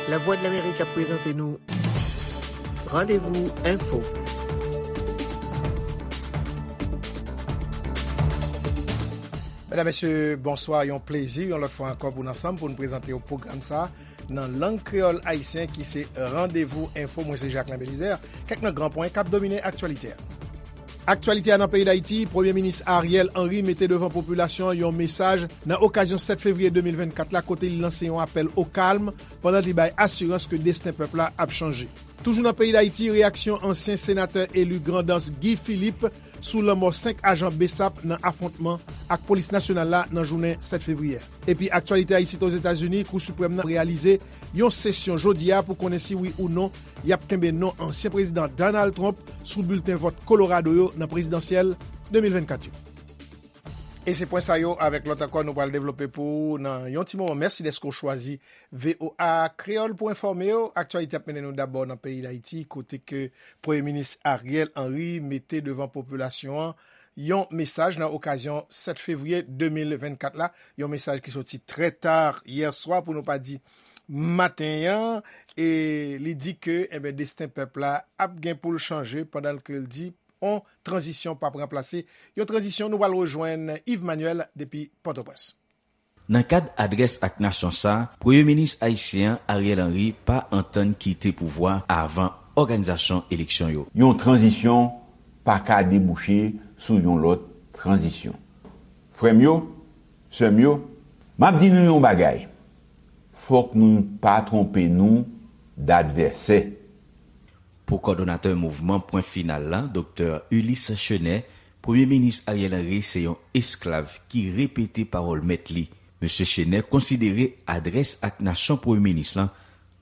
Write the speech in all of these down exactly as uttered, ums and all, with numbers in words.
Lavwadlamerik ap prezante nou Randevou Enfo. Medam, mesye, bonswa. Yon plezi, yon lòt fwa ankò, pou n ansanm, pou n prezante w pwogram sa a nan lang kreyòl ayisyen, ki se Randevou Enfo. Mwen se Jacquelin Belizaire. Kèk nan gran pwen k ap domine aktyalite a. Aktyalite a nan peyi Dayiti, Premye Minis Ariel Henry mete devan popilasyon an yon mesaj nan okazyon sèt fevriye de mil vennkat la, kote li lanse yon apèl o kalm pandan li bay asirans ke desten pèp la ap chanje. Toujou nan peyi Dayiti, reyaksyon ansyen senatè eli Grandans Guy Philippe sou lanmò senk ajan BSAP nan afwontman ak polis nasyonal la nan jounen sèt fevriye. Epi aktyalite a isit Ozetazini, Kou Siprèm nan reyalize yon sesyon jodi a pou konnen si wi ou non y ap kenbe non ansyen prezidan Donald Trump sou bilten vòt Colorado yo nan prezidansyèl de mil vennkat yo. E se pwen sa yo avèk lòt ankò nou pral devlope pou ou nan yon ti moman. Mèsi dèske w chwazi V O A Kreyòl pou enfòme w. Aktyalite ap mennen nou dabò nan peyi Dayiti, kote ke Premye Minis Ariel Henry mete devan popilasyon an yon mesaj nan okazyon sèt fevriye de mil vennkat la, yon mesaj ki soti trè ta yè swa, pou nou pa di maten an, e li di ke, enben, desten pèp la ap gen pou l chanje, pandan ke l di yon tranzisyon p ap ranplase yon tranzisyon. Nou pral rejwenn Yves Manuel depi Pòtoprens. Nan kad adrès ak nasyon sa a, Premye Minis ayisyen an, Ariel Henry, pa antann kite pouvwa a avan òganizasyon eleksyon yo. Yon tranzisyon pa ka debouche sou yon lòt tranzisyon. Frè m yo, sè m yo, m ap di nou yon bagay. Fòk nou pa twonpe nou d advèsè. Pou kòdonatè mouvman Pwen Final la, Doktè Ulysse Chenet, Premye Minis Ariel Henry se yon esklav ki repete pawòl mèt li. Mesye Chenet konsidere adrès ak nasyon Premye Minis lan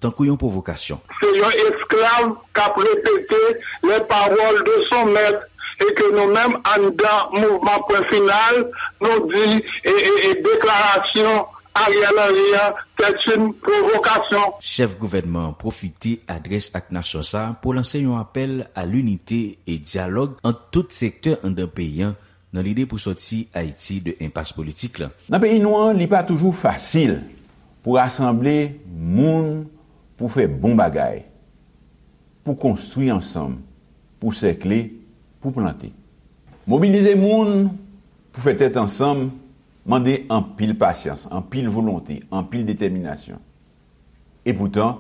tankou yon pwovokasyon. Se yon esklav k ap repete les paroles de son maître, e ke nou menm anndan mouvman Pwen Final, nou di e, e, e deklarasyon Ariel Henry an, c'est une provocation. Chèf gouvènman an pwofite adrès ak nasyon sa a pou lanse yon apèl a linite e dyalòg ant tout sektè anndan peyi an nan lide pou sòti Ayiti de enpas politik lan. Nan peyi nou an, li pa toujou fasil pou rasanble moun pou fè bon bagay, pou konstwi ansanm, pou sèkle, pou plante. Mobilize moun pou fè tèt ansanm mande anpil pasyans, anpil volonte, anpil detèminasyon. Epoutan,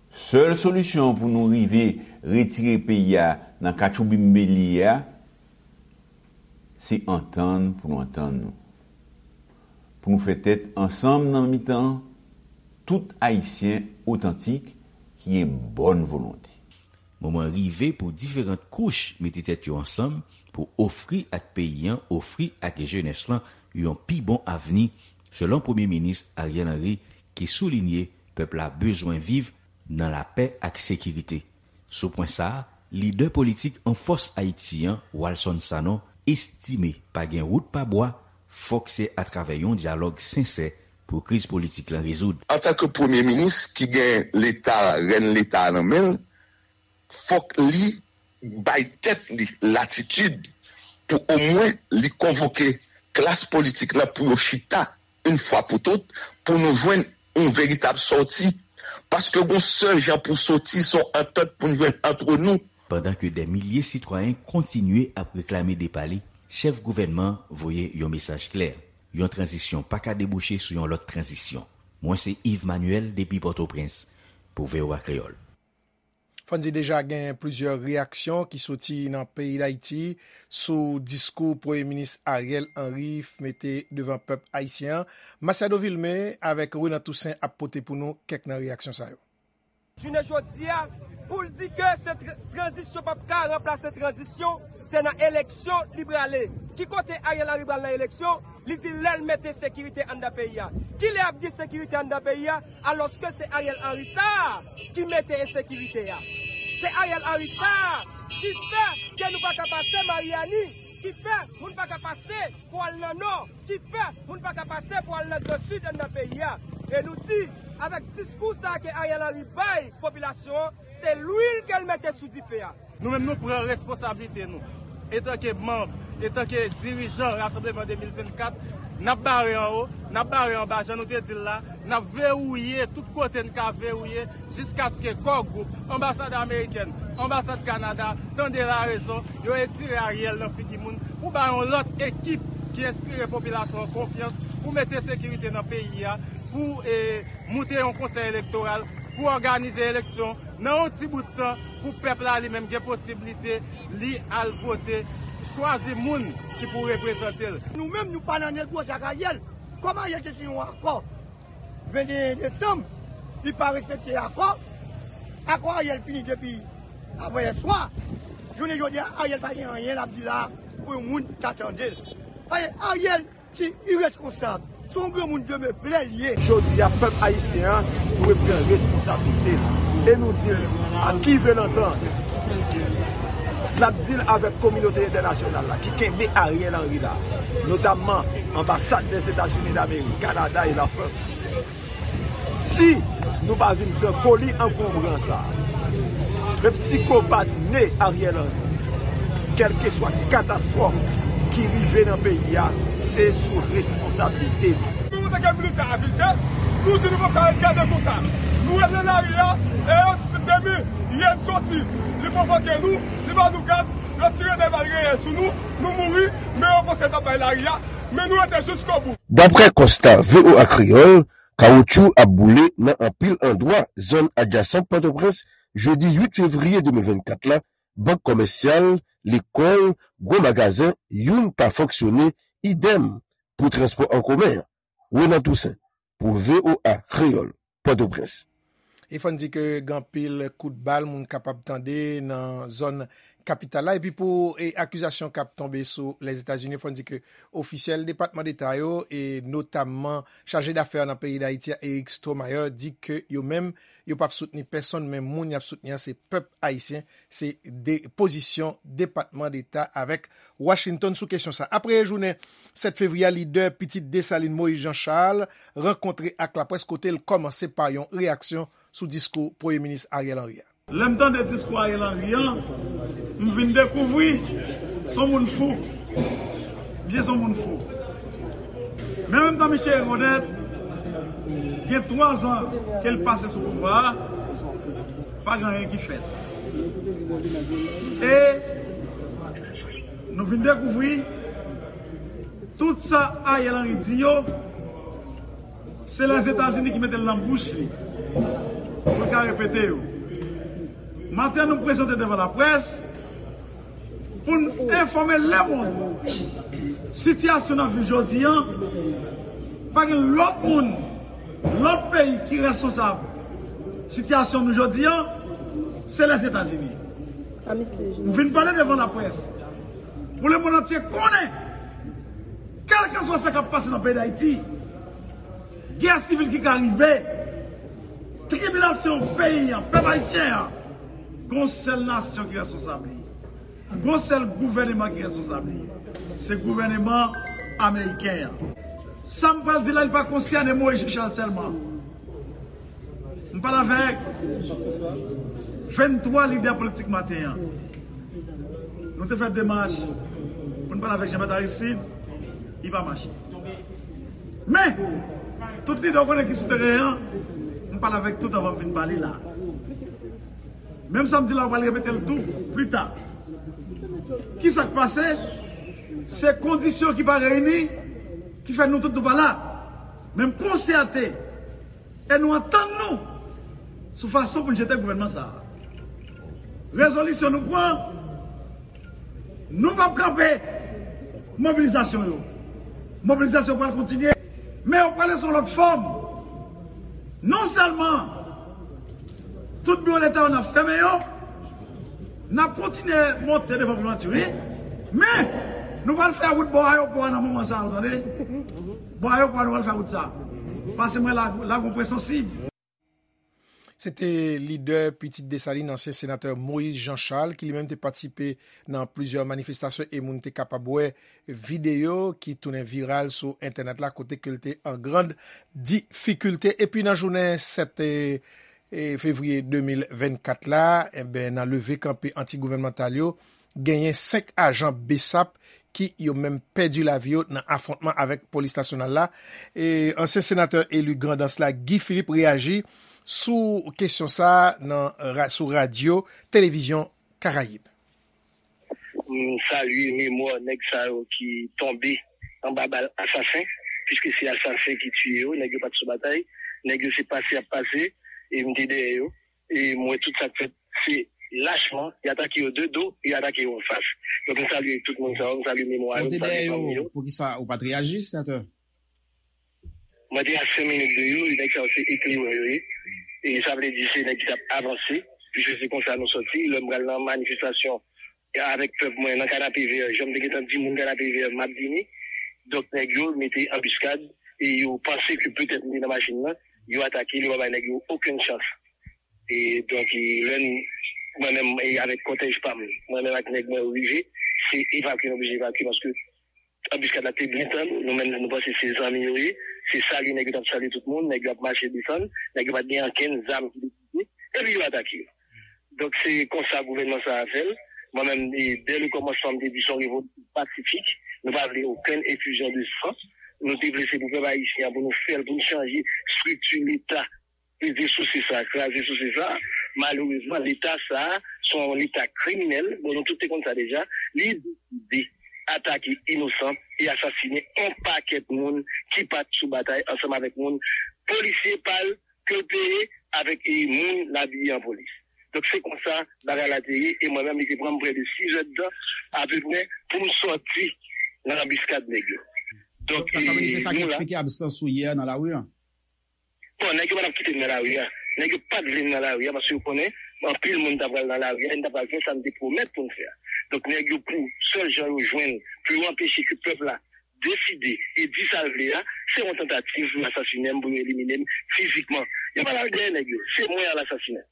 sèl solisyon pou nou rive retire peyi a nan katchoubinm li ye a, se antann pou nou antann nou. Pou nou fè tèt ansanm nan mitan tout Ayisyen otantik ki gen bòn volonte. Moman rive pou diferan kouch mete tèt yo ansanm pou ofri ak peyi an, ofri ak jenès lan yon pi bon avni, selon Premye Minis Ariel Henry, ki soulinye pèp la bezwen viv nan lapè ak sekirite. Sou pwen sa a, lidè politik an fòs Ayiti an, Walson Sanon, estime pa gen wout pa bwa, fòk se atravè yon dyalòg sensè pou kriz politik lan rezoud. Antanke Premye Minis ki gen Leta, rèn Leta a nan men l, fòk li bay tèt li latitid pou omwen li konvoke klas politik lan pou yo chita yon fwa pou tout, pou nou jwenn yon veritab sòti. Paske gon sèl jan pou sòti, se yon antant pou n jwenn antre nou. Pandan ke dè milye sitwayen kontinye ap reklame depa li, chèf gouvènman an voye yon mesaj klè. Yon tranzisyon pa ka debouche sou yon lòt tranzisyon. Mwen se Yves Manuel depi Pòtoprens pou V O A Kreyòl. Fò n di deja gen plizyè reyaksyon ki soti nan peyi Dayiti sou diskou Premye Minis Ariel Henry mete devan pèp ayisyen an. Masiado Vilmé avèk Renan Toussaint ap pote pou nou kèk nan reyaksyon sa yo. Jounen jodi a, pou l di ke se tr-, tranzisyon p ap ka ranplase tranzisyon, se nan eleksyon li prale. Ki kote Ariel Henry pral nan eleksyon? Li di lè l mete sekirite anndan peyi a. Kilè ap gen sekirite anndan peyi a, alòske se Ariel Henry sa a ki mete ensekirite a? Se Ariel Henry sa a ki fè ke nou pa ka pase Maryani, ki fè moun pa ka pase pou al nan nò, ki fè moun pa ka pase pou al nan gran sid anndan peyi a. E nou di, avèk diskou sa a ke Ariel Henry bay popilasyon an, se lwil ke l mete sou dife a. Nou menm, nou pran responsablite nou. Etanke manm, etanke dirijan Rasanbleman de mil vennkat, n ap bare anwo, n ap bare anba, jan nou te di l la, N ap vewouye tout kote n ka vewouye jiskaske Core Group, anbasad amerikèn, anbasad Kanada, tande larezon, yo etire Ariel nan figi moun pou bay yon lòt ekip ki enspire popilasyon an konfyans pou mete sekirite nan peyi a, pou e, moute yon konsèy elektoral, pou òganize eleksyon nan yon ti bout tan pou pèp la li menm gen posiblite li al vote, chwazi moun ki pou reprezante l. Nou menm, nou pa nan negosye ak Ariel. Kòm Ariel te siyen yon akò venteyen desanm, li pa respekte akò. Akò Ariel fini depi avanyè swa. Jounen jodi a, Ariel pa gen anyen l ap di la pou yon moun ta tande l. Ariel, se ireskonsab. Se yon granmoun demen plè l ye. Jodi a, pèp ayisyen an dwe pran responsablite l. E nou di l, a qui veut l'entendre? N ap di l avèk kominote entènasyonal la ki kenbe Ariel Henry la, notamman anbasad Lèzetazini Damerik, Kanada e Lafrans. Si nou pa vin pran koli ankonbran sa a, menm sikopat ne Ariel Henry, kèlkeswa katastwòf ki rive nan peyi a, se sou responsablite li. Nou, antanke militan avize, nou di nou p ap ka ret gade konsa. Nou ret nan lari a, e yo di se demen Yèn soti, li pwovoke nou, li ba nou gaz, yo tire de bal reyèl sou nou, nou mouri, men yo panse n t ap bay lari a, men nou rete jiskobou. Daprè konsta V O A Kreyòl, kawotchou ap boule nan anpil andwa zòn adjasan Pòtoprens jedi uit fevriye de mil vennkat la, bank kòmèsyal, lekòl, gwo magazen, youn pa fonksyone, idèm pou transpò an komen an. Renan Toussaint, pou V O A Kreyòl, Pòtoprens. E fò n di ke gen anpil kout bal moun kapab tande nan zòn kapital la. Epi pou e, akizasyon k ap tonbe sou Lèzetazini, fò n di ke ofisyèl Depatman Deta yo, e notamman chaje dafè nan peyi Dayiti a, Eric Stromayer, di ke yo menm, yo p ap soutni pèsonn, men moun y ap soutni an se pèp ayisyen, se de pozisyon Depatman Deta avèk Washington sou kesyon sa. Apre jounen sèt fevriye a, lidè pitit Desalin Moïse Jean Charles rankontre ak laprès kote l kòmanse pa yon reyaksyon sou diskou Premye Minis Ariel Henry a. Lè m tande diskou Ariel Henry an, m vin dekouvri se yon moun fou. Misye se yon moun fou. Men menm tan misye rekonèt, gen twa zan ke l pase sou pouvwa a, pa gen anyen ki fèt. E nou vin dekouvri tout sa Ariel Henry di yo, se Lèzetazini ki mete l nan bouch li pou l ka repete yo. Maten an, nou prezante devan laprès pou n enfòme lemonn sitiyasyon n ap viv jodi an. Pa gen lòt moun, lòt peyi ki responsab sitiyasyon nou jodi an, se Lèzetazini. M vin pale devan laprès pou lemonn antye konnen, kèlkeswa sa k ap pase nan peyi Dayiti, gè sivil ki ka rive, tribilasyon peyi an, pèp ayisyen an, gon sèl nasyon ki responsab li. Gon sèl gouvèneman ki responsab li. Se gouvèneman ameriken an. Sa m pral di la, li pa konsène Moïse Jean Charles sèlman. M pale avèk venntwa lidè politik maten an. Nou te fè demach pou n pale avèk Jean Bertrand Aristide, li pa mache. Men, tout lidè w konnen ki sou teren an, m pale avèk tout anvan m vin pale la. Menm sa m di la, w pral repete l tou pita. Kisa k pase? Se kondisyon ki pa reyini ki fè nou tout nou pa la. Men m konsète e nou antann nou sou fason pou n jete gouvènman sa a. Rezolisyon nou pran, nou p ap kanpe mobilizasyon yo. Mobilizasyon pral kontinye, men yo prale sou lòt fòm. Non sèlman tout biwo leta yo n ap fèmen yo, n ap kontinye monte devan primati, wi. Men, nou pral fè wout bò ayewopò a nan moman sa a, ou tande? Bò ayewopò a, nou pral fè wout sa. Pase mwen la, la gon pwen sansib. Se te lidè Pitit Desalin, ansyen senatè Moïse Jean Charles, ki li menm te patisipe nan plizyè manifestasyon e moun te kapab wè videyo ki tounen viral sou entènèt la, kote ke l te an grann difikilte. Epi nan jounen sèt, e, e, fevriye de mil vennkat la, enben, nan leve kanpe anti-gouvènmantal yo, genyen senk ajan BSAP ki yo menm pèdi lavi yo nan afwontman avèk polis nasyonal la. E ansyen senatè eli Grandans la, Guy Philippe, reyaji sou kesyon sa a nan ra-, sou radyo Televizyon Karayib. M salye memwa nèg sa yo ki tonbe anba bal asasen, piske se asasen ki tiye yo, nèg yo pa t sou batay, nèg yo se pase y ap pase, e m te dèyè yo, e m wè tout sa k fèt, se lachman, y atake yo de do, e y atake yo anfas. Donk m salye tout moun sa yo, m salye memwa yo, m salye fanmi yo. Poukisa ou pa t reyaji, senatè? Mwen te a senk minit de yo, e nèg sa yo se ekliran yo ye. E sa vle di se nèg ki t ap avanse, piske se konsa nou sòti. Lè m pral nan manifestasyon avèk pèp mwen nan Kanapevè, jan m te gentan di moun Kanapevè m ap vini. Donk nèg yo mete anbiskad e yo panse ke petèt m te nan machin nan, yo atake l, yo pa bay nèg yo okenn chans. E donk e lè n, mwen menm e avèk kòtèj pa m, mwen menm ak nèg mwen yo rive, se evakye nou oblije evakye paske anbiskad la te byen tann, nou menm nou panse se zanmi yo ye, se salye nèg yo t ap salye tout moun, nèg yo ap mache desann, nèg yo pa t gen ankenn zam ki te pote, epi yo atake yo. Donk se konsa gouvènman sa a fè l. Mwen menm, e, dè le kòmansman m te di se yon revolisyon pasifik, nou pa vle okenn efizyon de san, nou te vle se pou pèp ayisyen an, pou nou fè l, pou nou chanje estrikti Leta, peze sou se sa, kraze sou se sa. Malerezman, Leta sa a, se yon Leta kriminèl, bon nou tout te konn sa deja, li deside atake inosan e asasinen yon pakèt moun ki pa t sou batay ansanm avèk moun polisye pa l ke l peye avèk e moun l abiye an polis. Donk se konsa bagay la te ye e mwen menm li te pran m prè de sizèdtan apeprè pou m sòti nan anbiskad nèg yo. Donk sa vle di se sa ki eksplike absans ou yè nan lari an? Bon, nèg yo pa t ap kite m nan lari a. Nèg yo pa t vle m nan lari a paske yo konnen anpil moun ta pral nan lari a e n ta pral fè sa n te pwomèt pou n fè a. Donk nèg yo pou sèl jan yo jwenn pou yo anpeche ke pèp la deside e di sa l vle a, se yon tantativ pou yo asasinen m, pou yo elimine m fizikman. Yo pa t al dèyè nèg yo, se mwen y al asasinen.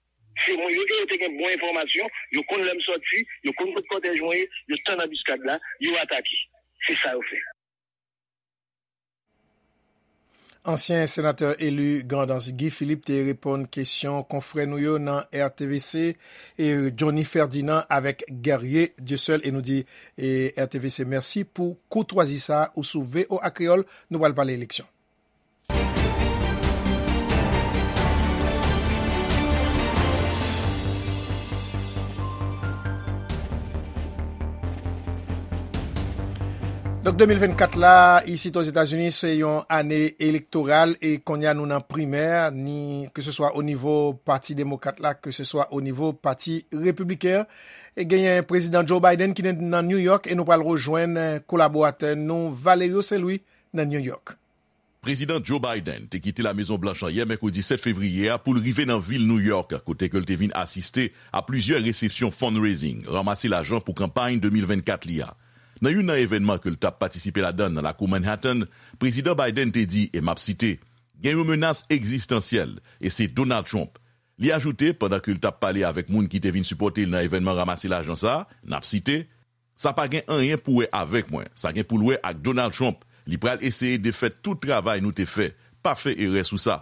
Se mwen yo e yo te gen bon enfòmasyon, yo konn lè m sòti, yo konn kot kòtèj mwen ye, yo tann anbiskad la, yo atake. Se sa yo fè. Ansyen senatè eli Grandans Guy Philippe te reponn kesyon konfrè nou yo nan R T V C, e Johnny Ferdinand avèk Guerrier Dieuseul, e nou di e R T V C mèsi pou koutwazi sa a. Ou sou V O A Kreyòl, nou pral pale eleksyon. Donk de mil vennkat la, isit Ozetazini, se yon ane elektoral e kounye a nou nan primè, ni keseswa o nivo Pati Demokrat la, keseswa o nivo Pati Repibliken an. E genyen Prezidan Joe Biden ki nan New York e nou pral rejwenn kolaboratè nou Valerio Saint Louis nan New York. Prezidan Joe Biden te kite La Mezon Blanch an yè mèkredi sèt fevriye a pou l rive nan vil New York, kote ke l te vin asiste a plizyè resepsyon fundraising, ranmase lajan pou kanpay de mil vennkat li a. Nan youn nan evènman ke l t ap patisipe ladan l nan lakou Manhattan, Prezidan Biden te di, e m ap site, gen yon menas egzistansyèl, e se Donald Trump. Li ajoute, pandan ke l t ap pale avèk moun ki te vin sipòte l nan evènman ranmase lajan sa a, n ap site, Sa pa gen anyen pou wè avèk mwen. Sa gen pou l wè ak Donald Trump. Li pral eseye defèt tout travay nou te fè. Pa fè erè sou sa.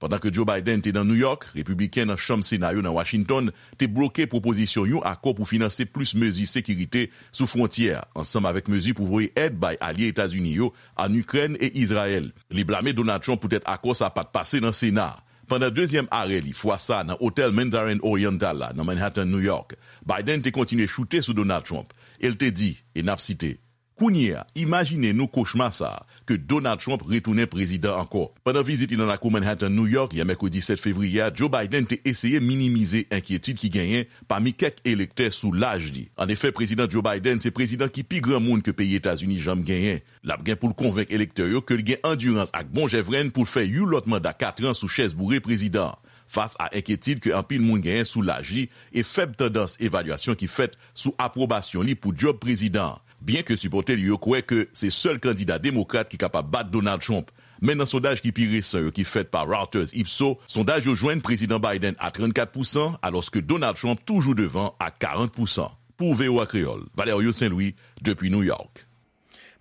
Pandan ke Joe Biden te nan New York, Repibliken nan Chanm Sena yo nan Washington te bloke pwopozisyon yon akò pou finanse plis mezi sekirite sou fwontyè a, ansanm avèk mezi pou voye èd bay alye Etazini yo ann Ikrèn e Izrayèl. Li blame Donald Trump poutèt akò sa a pa t pase nan Sena a. Pandan dezyèm arè li, fwa sa a nan otèl Mandarin Oriental la, nan Manhattan, New York, Biden te kontinye choute sou Donald Trump e l te di, e n ap site, Kounye a, imajine nou kochma sa a, ke Donald Trump retounen prezidan ankò. Pandan vizit li nan lakou Manhattan, New York, yè mèkredi sèt fevriye a, Joe Biden te eseye minimize enkyetid ki genyen pami kèk elektè sou laj li. Annefè, Prezidan Joe Biden se prezidan ki pi granmoun ke peyi Etazini janm genyen. L ap gen pou l konvenk elektè yo ke l gen andirans ak bon jèvrenn pou l fè yon lòt manda katran sou chèz boure prezidan an, fas a enkyetid ke anpil moun genyen sou laj li e fèb tandans evalyasyon ki fèt sou apwobasyon li pou djòb prezidan an. Byenke sipòtè li yo kwè ke se sèl kandida demokrat ki kapab bat Donald Trump, men nan sondaj ki pi resan yo ki fèt pa Reuters Ipsos, sondaj yo jwenn Prezidan Biden a trannkat pousan, alòske Donald Trump toujou devan ak karant pousan. Pou V O A Kreyòl, Valerio Saint Louis, depi New York.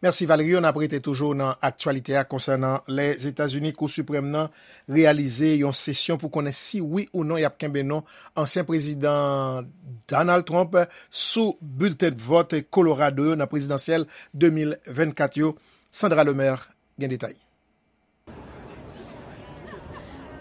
Mèsi, Valerio. N ap rete toujou nan aktyalite a konsènan Lèzetazini. Kou Siprèm nan reyalize yon sesyon pou konnen si wi ou non y ap kenbe non ansyen prezidan Donald Trump sou bilten vòt Colorado yo nan prezidansyèl de mil vennkat yo. Sandra Lemaire gen detay.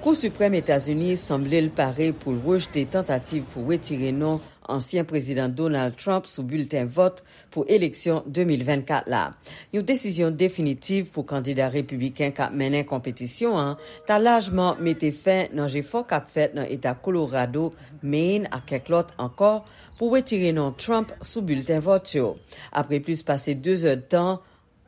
Kou Siprèm Etazini sanble l pare pou l rejte tantativ pou retire non ansyen prezidan Donald Trump sou bilten vòt pou eleksyon de mil vennkat la. Yon desizyon definitiv pou kandida repibliken k ap mennen konpetisyon an ta lajman mete fen nan jefò k ap fèt nan eta Colorado, Maine ak kèk lòt ankò pou retire non Trump sou bilten vòt yo. Apre plis pase de zèdtan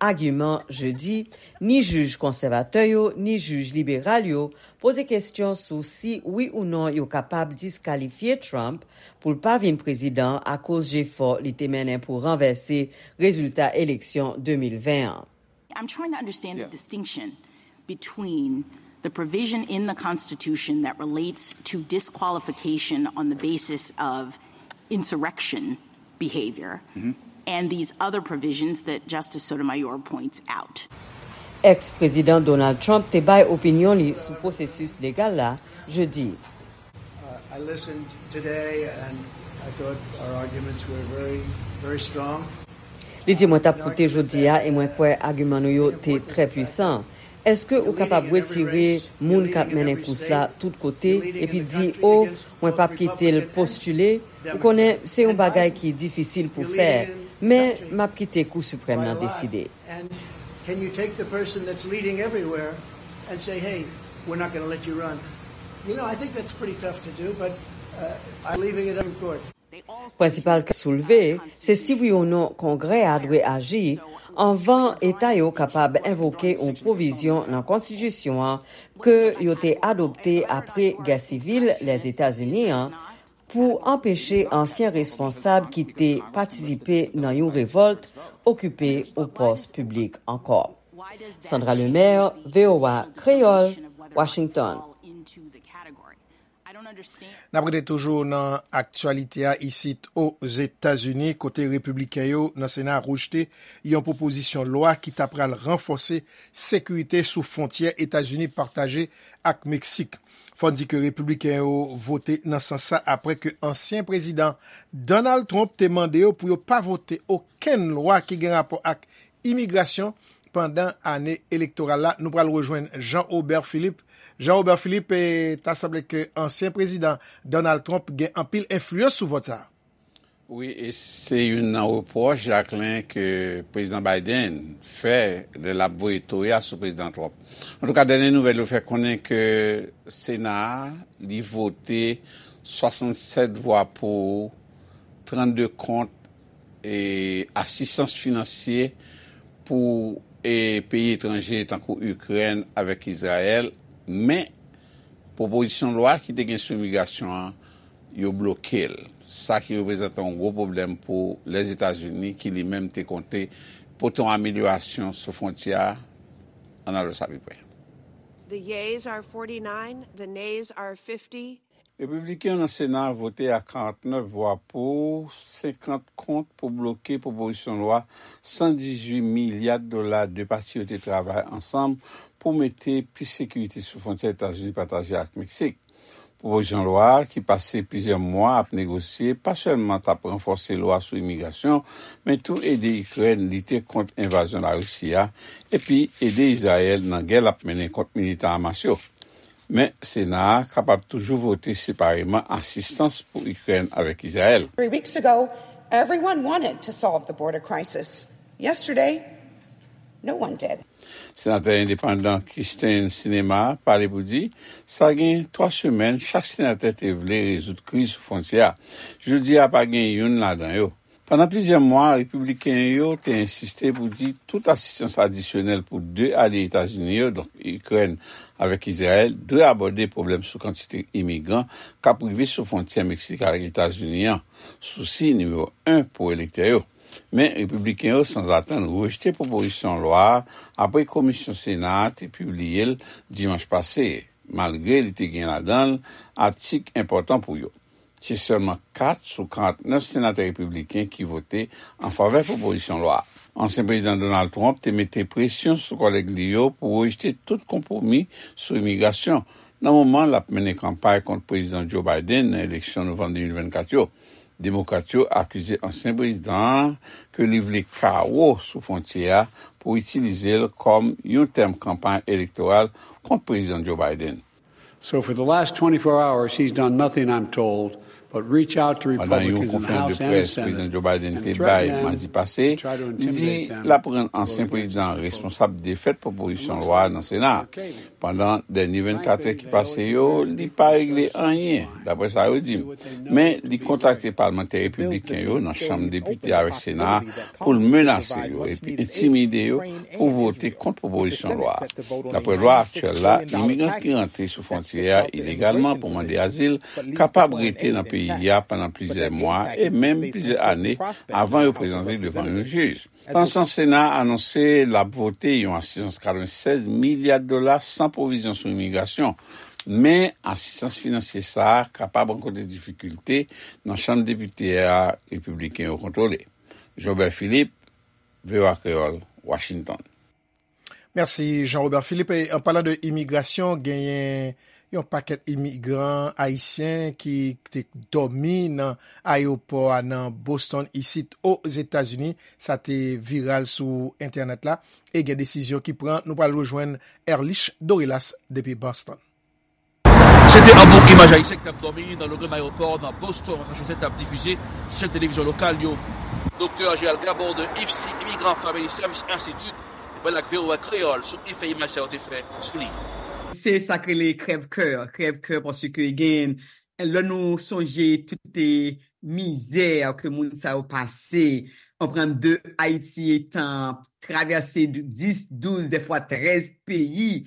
agiman jedi, ni jij konsèvatè yo, ni jij liberal yo poze kesyon sou si, wi ou non, yo kapab diskalifye Trump pou l pa vin prezidan akoz jefò li te mennen pou ranvèse rezilta eleksyon de mil ven an. I'm trying to understand the distinction between the provision in the Constitution that relates to disqualification on the basis of insurrection behavior and these other provisions that Justice Sotomayor points out. Ex-prezidan Donald Trump te bay opinyon li sou pwosesis legal la jedi. Uh, I listened today and I thought our arguments were very, very strong. Li di, "Mwen t ap koute jodi a e mwen kwè agiman nou yo te trè pwisan. Èske ou kapab retire moun k ap mennen kous la tout kote epi di, 'O, mwen p ap kite l postile'? Ou konnen, se yon bagay ki difisil pou fè, men m ap kite Kou Siprèm nan deside." And can you take the person that's leading everywhere and say, "Hey, we're not gonna let you run"? You know, I think that's pretty tough to do, but uh, I'm leaving it up in court. Prensipal ke soulve, se si wi ou non Kongrè a dwe aji anvan Eta yo kapab envoke yon pwovizyon nan Konstitisyon an ke yo te adopte apre Gè Sivil Lèzetazini an pou anpeche ansyen responsab ki te patisipe nan yon revòlt okipe yon pòs piblik ankò. Sandra Lemaire, V O A Kreyòl, Washington. N ap rete toujou nan aktyalite a isit Ozetazini, kote repibliken yo nan Sena a rejte yon pwopozisyon lwa ki ta pral ranfòse sekirite sou fwontyè Etazini pataje ak Meksik. Fò n di ke repibliken yo vote nan sans sa apre ke ansyen prezidan Donald Trump te mande yo pou yo pa vote okenn lwa ki gen rapò ak imigrasyon pandan ane elektoral la. Nou pral rejwenn Jean Robert Philippe. Jean Robert Philippe, eh, ta sanble ke ansyen prezidan Donald Trump gen anpil enfliyans sou vòt sa a. Wi, e se youn nan repwòch, Jacquelin, ke prezidan Biden fè lè l ap voye toya sou prezidan Trump. Antouka, dènye nouvèl yo fè konnen ke Sena a, li vote swasannsèt vwa pou, trannde kont e asistans finansye pou e peyi etranje tankou Ikrèn avèk Izrayèl, men pwopozisyon lwa ki te gen sou imigrasyon an, yo bloke l. Sa ki reprezante yon gwo pwoblèm pou Lèzetazini ki li menm te konte pote yon amelyorasyon sou fwontyè a, ann al wè sa pi pre. The yeas are forty-nine, the nays are fifty. Repibliken yo nan Sena a vote ak karantnèf vwa pou, senkant kont pou bloke pwopozisyon lwa san dizuit milya dola de pati yo te travay ansanm pou mete plis sekirite sou fwontyè Etazini pataje ak Meksik. Pwopozisyon lwa a, ki pase plizyè mwa ap negosye, pa sèlman t ap ranfòse lwa sou imigrasyon, men tou ede Ikrèn lite kont envazyon Larisi a, epi ede Izrayèl nan gè l ap mennen kont militan Hamas yo. Men, Sena a kapab toujou vote separeman asistans pou Ikrèn avèk Izrayèl. Three weeks ago, everyone wanted to solve the border crisis. Yesterday, no one did. Senatè endepandan Kyrsten Sinema pale pou di, sa gen twa semèn, chak senatè te vle rezoud kriz sou fwontyè a. Jodi a, pa gen youn ladan yo. Pandan plizyè mwa, repibliken yo te ensiste pou di tout asistans adisyonèl pou de alye Etazini yo, donk Ikrèn avèk Izrayèl, dwe abòde pwoblèm sou kantite imigran k ap rive sou fwontyè Meksik ak Etazini an, sousi nimewo en pou elektè yo. Men, repibliken yo, sanzatann, rejte pwopozisyon lwa a apre komisyon Sena a te pibliye l dimanch pase, malgre li te gen ladan l atik enpòtan pou yo. Se sèlman kat sou karantnèf senatè repibliken ki vote an favè pwopozisyon lwa a. Ansyen Prezidan Donald Trump te mete presyon sou kòlèg li yo pou rejte tout konpwomi sou imigrasyon, nan moman l ap mennen kanpay kont Prezidan Joe Biden nan eleksyon novanm de mil vennkat yo. Demokrat yo akize ansyen prezidan an ke li vle kawo sou fwontyè a pou itilize l kòm yon tèm kanpay elektoral kont Prezidan Joe Biden. So for the last twenty-four hours, he's done nothing, I'm told, but reach out to Pandan yon Republicans in the konferans de House and près Prezidan Senate Joe Biden and te bay threaten them madi pase, to try to li di intimidate them l ap rann to vote ansyen against prezidan his proposal. Responsab defèt pwopozisyon lwa a nan Sena a. Pandan dènye vennkat è ki pase yo, li pa regle anyen, dapre sa yo di m. Men, li kontakte palmantè repibliken yo nan Chanm Depite avèk Sena a pou l menase yo epi entimide yo pou vote kont pwopozisyon lwa a. Dapre lwa aktyèl la, imigran ki rantre sou fwontyè a ilegalman pou mande azil kapab rete nan peyi a pandan plizyè mwa e menm plizyè ane avan yo prezante devan yon jij. Pandan se tan, Sena a anonse l ap vote yon asistans katrevennsèz milya dola san pwovizyon sou imigrasyon, men asistans finansye sa a kapab rankontre difikilte nan Chanm Depite a repibliken yo kontwole. Jobert Philippe, V O A Kreyòl, Washington. Mèsi, Jean Robert Philippe. E, an palan de imigrasyon, genyen yon pakèt imigran ayisyen ki te dòmi nan ayewopò a nan Boston, isit Ozetazini. Sa te viral sou entènèt la. E gen desizyon ki pran. Nou pral rejwenn Erlich Dorelas depi Boston. Se te anbo imaj ayisyen ki t ap dòmi nan logan ayewopò nan Boston, Massachusetts, t ap difize sou chèn televizyon lokal yo. Doktè Gérald Gabon de IFSI, Immigrant Family Service Institute, te pale ak V O A Kreyòl sou efè imaj sa yo te fè sou li. Se sa k rele krèv kè, krèv kè, paske gen, lè nou sonje tout, e, mizè ke moun sa yo pase, anprann de Ayiti etan travèse dis, douz, dèfwa trèz peyi,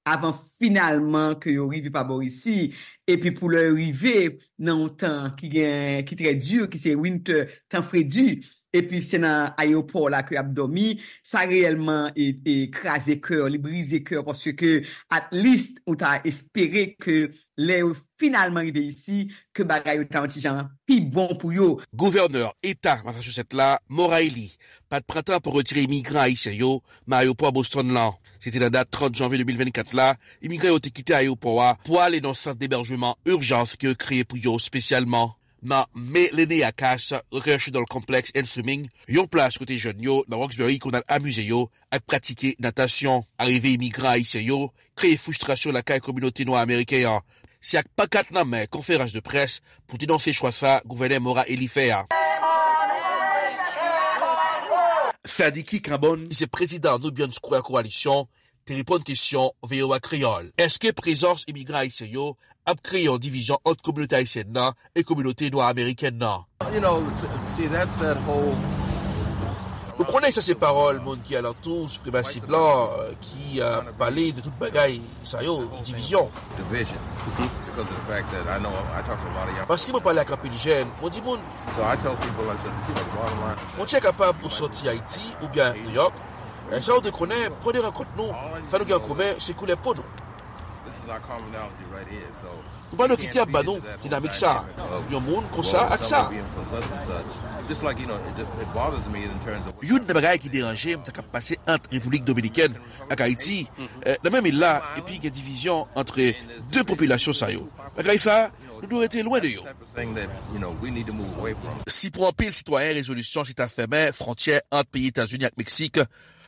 avan finalman ke yo rive pa bò isi, epi pou lè yo rive nan yon tan ki gen, ki trè di, ki se winter, tan fredi, epi se nan ayewopò la ke y ap dòmi, sa reyèlman e, e kraze kè, li brize kè, paske at least ou ta espere ke lè yo finalman rive isi, ke bagay yo ta yon ti jan pi bon pou yo. Gouvènè Eta Massachusetts la, Maura Healey, pa t pran tan pou retire imigran ayisyen yo nan ayewopò Boston lan. Se te nan dat trant janvye de mil vennkat la, imigran yo te kite ayewopò a pou ale nan sant debèjman ijans ke yo kreye pou yo espesyalman. Nan Melenia Cass Recreational Complex and Swimming, yon plas kote jèn yo nan Roxbury konn al amize yo ak pratike natasyon. Arive imigran ayisyen yo kreye fristrasyon lakay kominote nwa ameriken an. Se ak pankat nan men, konferans de près pou denonse chwa sa gouvènè Maura Healey fè a. Sadiki Cambone, ki se prezidan Nubian Square Coalition, te reponn kesyon V O A Kreyòl. Èske prezans imigran ayisyen yo ap kreye yon divizyon ant kominote ayisyèn nan e kominote nwa amerikèn nan? You know, t-, see, that's that whole Ou konnen sa se pawòl moun ki alantou, sipremasi blan, euh, ki, euh, pale de tout bagay sa yo, divizyon. Division. Because of the fact that I know I talk to a lot of young Paske mwen pale ak anpil jèn, mwen di moun, So I tell people, I said, you know, the bottom line, fwontyè kapab ou sòti Ayiti oubyen New York. E sa ou dwe konnen, pwen de rankont nou, sa nou gen an komen, se koulè po nou. This is our commonality right here. So Nou pa dwe kite ap ba nou dinamik sa. Yon moun konsa ak sa. Youn nan bagay ki deranje m, sa k ap pase ant Repiblik Dominikèn ak Ayiti, eh, nan menm il la, epi gen divizyon ant de popilasyon sa yo. Bagay sa, nou dwe rete lwen de yo. Si pou anpil sitwayen, rezolisyon se ta fèmen fwontyè ant peyi Etazini ak Meksik,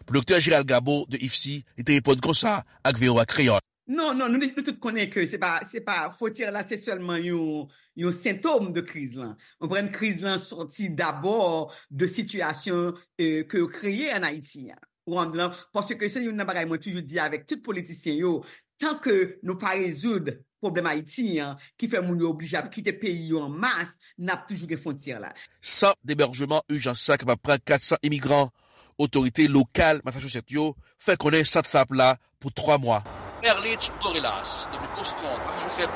pou Doktè Gérald Gabo de IFSI, li te reponn konsa ak V O A Kreyòl. Non, non, nou, nou tout konnen ke se pa, se pa, fwontyè la, se sèlman yon, yon sentòm de kriz lan. Ou konprann, kriz lan sòti dabò de sitiyasyon, eh, ke yo kreye ann Ayiti an. Ou konprann, paske se youn nan bagay mwen toujou di avèk tout politisyen yo, tan ke nou pa rezoud pwoblèm Ayiti an, ki fè moun yo oblije ap kite peyi yo an mas, n ap toujou gen fwontyè la. Sant debèjman ijans sa kapab pran kat san imigran. Otorite lokal Massachusetts yo fè konnen sant sa ap la pou twa mwa. Erlich Dorelas, depi Boston, Massachusetts,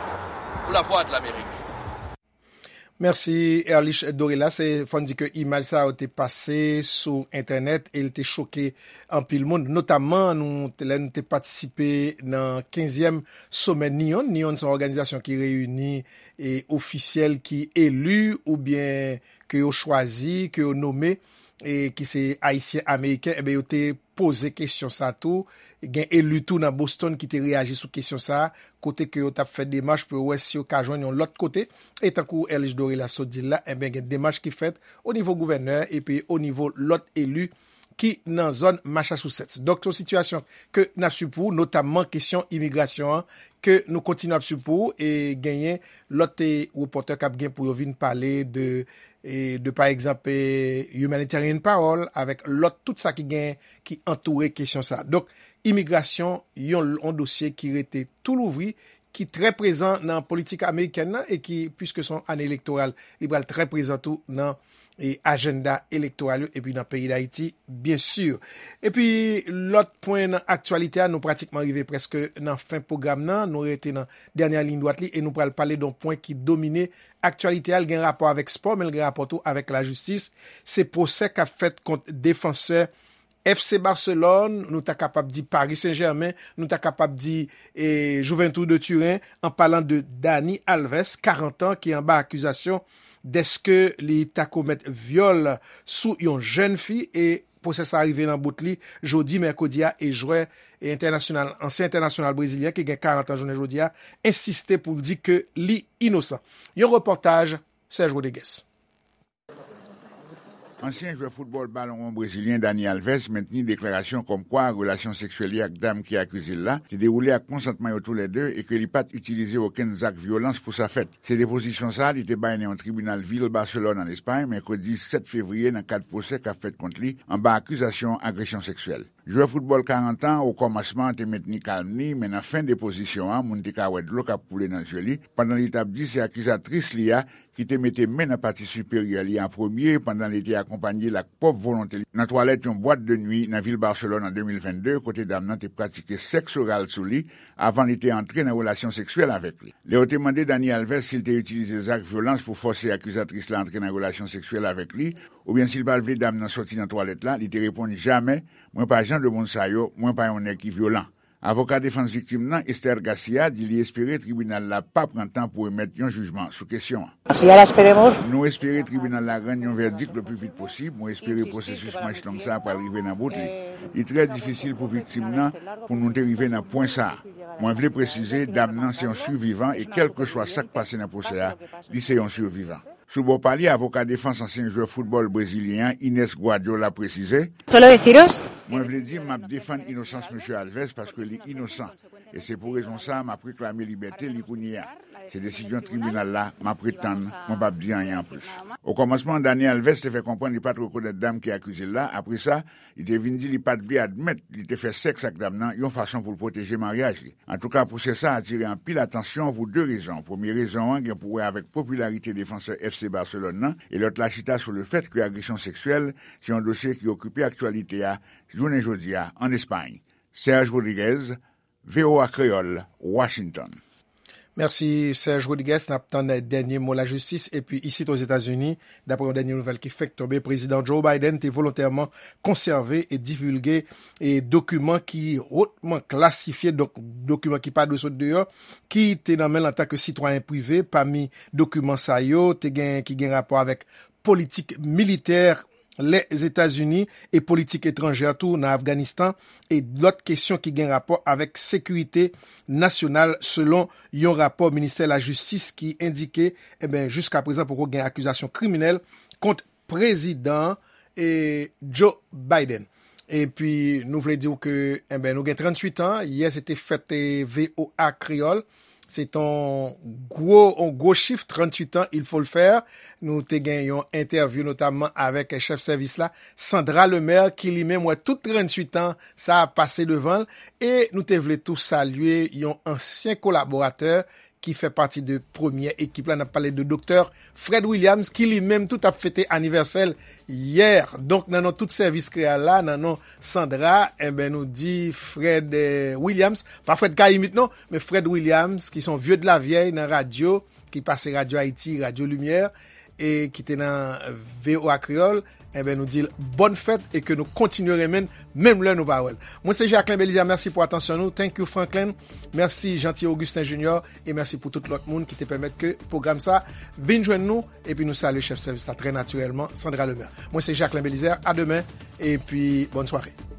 pou Lavwadlamerik. Mèsi, Erlich Dorelas. E fò n di ke imaj sa yo te pase sou entènèt e l te choke anpil moun, notamman nou, lè nou te patisipe nan kenzyèm somè NEON. NEON se yon òganizasyon ki reyini e ofisyèl ki eli oubyen ke yo chwazi, ke yo nome, e ki se Ayisyen Ameriken, enben, yo te poze kesyon sa tou. Gen eli tou nan Boston ki te reyaji sou kesyon sa, kote ke yo t ap fè demach pou yo wè si yo ka jwenn yon lòt kote. E tankou Erlich Doré la sot di l la, enben, gen demach ki fèt o nivo gouvènè epi o nivo lòt eli ki nan zòn Massachusetts. Donk, se yon sitiyasyon ke n ap swiv pou ou, notamman kesyon imigrasyon an, ke nou kontinye ap swiv pou ou, e genyen lòt, e, repòtè k ap gen pou yo vin pale de, e, de, pa egzanp, e, humanitarian parole, avèk lòt, tout sa ki gen, ki antoure kesyon sa. Donk, imigrasyon, yon, yon dosye ki rete tou louvri, ki trè prezan nan politik amerikèn nan e ki, piske se yon ane elektoral, li pral trè prezan tou nan, e, ajanda elektoral yo epi nan peyi Dayiti, byen si. Epi, lòt pwen nan aktyalite a, nou pratikman rive prèske nan fen pwogram nan, nou rete nan dènyè liy dwat li e nou pral pale de yon pwen ki domine aktyalite a, l gen rapò avèk spò, men l gen rapò tou avèk lajistis. Se pwosè k ap fèt kont defansè F C Barcelone, nou ta kapab di Paris Saint-Germain, nou ta kapab di, e, Juventus de Turin, an palan de Dani Alves, karant an, ki anba akizasyon dèske li ta komèt vyòl sou yon jèn fi, e pwosè sa rive nan bout li jodi mèkredi a, e jwè, e, entènasyonal, ansyen entènasyonal brezilyen ki gen karant an jounen jodi a, ensiste pou l di ke li inosan. Yon repòtaj Serge Rodriguez. Ansyen jwè foutbòl balonwon brezilyen Dani Alves mentni deklarasyon kòmkwa relasyon seksyèl li ak dam ki akize l la te dewoule ak konsantman yo toulède e ke li pa t itilize okenn zak vyolans pou sa fèt. Se depozisyon sa a li te bay nan yon tribinal vil Barcelone, an Espay, mèkredi sèt fevriye, nan kad pwosè k ap fèt kont li anba akizasyon agresyon seksyèl. Jwè foutbòl karant an, o kòmansman, te mentni kalm li, men nan fen depozisyon an, moun te ka wè dlo k ap koule nan zye li, pandan li t ap di se akizatris li a ki te mete men nan pati siperyè li an premye, pandan li te akonpanye l ak pwòp volonte li nan twalèt yon bwat de nwi nan vil Barcelone an de mil vennde, kote dam nan te pratike sèks oral sou li avan li te antre nan relasyon seksyèl avèk li. Lè yo te mande Dani Alves si l te itilize zak vyolans pou fòse akizatris la antre nan relasyon seksyèl avèk li, oubyen si l pa t vle dam nan sòti nan twalèt la, li te reponn: "Jamè, mwen pa jan de moun sa yo, mwen pa yon nèg ki vyolan." Avoka defans viktim nan, Esther Garcia, di li espere tribinal la pa pran tan pou emèt yon jijman sou kesyon an. Así ya la esperemos. Nou espere tribinal la rann yon vèdik le pli vit posib. Mwen espere pwosesis manch long sa a pral rive nan bout li. Li trè difisil pou viktim nan pou nou te rive nan pwen sa a. Mwen vle presize, dam nan se yon sivivan e kèlkeswa sa k pase nan pwosè a, li se yon sivivan. Sou bò pa li, avoka defans ansyen jwè foutbòl brezilyen an, Ines Guardiola, presize: Solo deciros. Mwen vle di, m ap defann inosans mesye Alves paske li inosan. E se pou rezon sa a m ap reklame libète li kounye a. Se desizyon tribinal la, m ap ret tann, mwen p ap di anyen anplis. O kòmansman, Dani Alves te fè konprann li pa t rekonèt dam ki akize l la. Apre sa, li te vin di li pa t vle admèt li te fè sèks ak dam nan yon fason pou l pwoteje maryaj li. Antouka, pwosè sa a atire anpil atansyon pou de rezon. Premye rezon an gen pou wè avèk popilarite defansè F C Barcelone nan, e lòt la chita sou lefèt ke agresyon seksyèl se yon dosye ki okipe aktyalite a jounen jodi a ann Espay. Serge Rodriguez, V O A Kreyòl, Washington. Mèsi, Serge Rodriguez. N ap tann dènye mo lajistis. Epi, isit Ozetazini, dapre yon dènye nouvèl ki fenk tonbe, Prezidan Joe Biden te volontèman konsève e divilge e dokiman ki wotman klasifye, donk dokiman ki pa dwe sot deyò, ki te nan men l antanke sitwayen prive. Pami dokiman sa yo, te gen ki gen rapò avèk politik militè Lèzetazini e politik etranjè tou nan Afganistan, e lòt kesyon ki gen rapò avèk sekirite nasyonal, selon yon rapò Ministè Lajistis ki endike, enben, jiska prezan poko gen akizasyon kriminèl kont Prezidan, e, Joe Biden. Epi, nou vle di w ke, enben, nou gen tranntuit an. Yè, se te fèt, e, V O A Kreyòl. Se t on gwo, on gwo chif, tranntuit an, il faut le faire. Nou te gen yon entèvyou notamman avèk chèf sèvis la, Sandra Lemaire, ki li menm wè tout tranntuit an sa a pase devan l. E nou te vle tou salye yon ansyen kolaboratè ki fè pati de premyè ekip la. N ap pale de Doktè Fred Williams, ki li menm tou t ap fete anivèsè l yè. Donk, nan non tout sèvis Kreyòl la, nan non Sandra, enben, nou di Fred, eh, Williams, pa Fred Kayimit non, men Fred Williams, ki se yon vye de la vyèy nan radyo, ki pase Radyo Ayiti, Radyo Limyè, e ki te nan V O A Kreyòl, enben, nou di l bòn fèt e ke nou kontinye renmen l, menm lè nou pa wè l. Mwen se Jacquelin Belizaire, mèsi pou atansyon nou. Thank you, Franklin. Mèsi, Jeanty Augustin Junior. E mèsi pou tout lòt moun ki te pèmèt ke pwogram sa vin jwenn nou. Epi nou salye chèf sèvis la trè natirèlman, Sandra Lemaire. Mwen se Jacquelin Belizaire. A demen. Epi, bòn sware.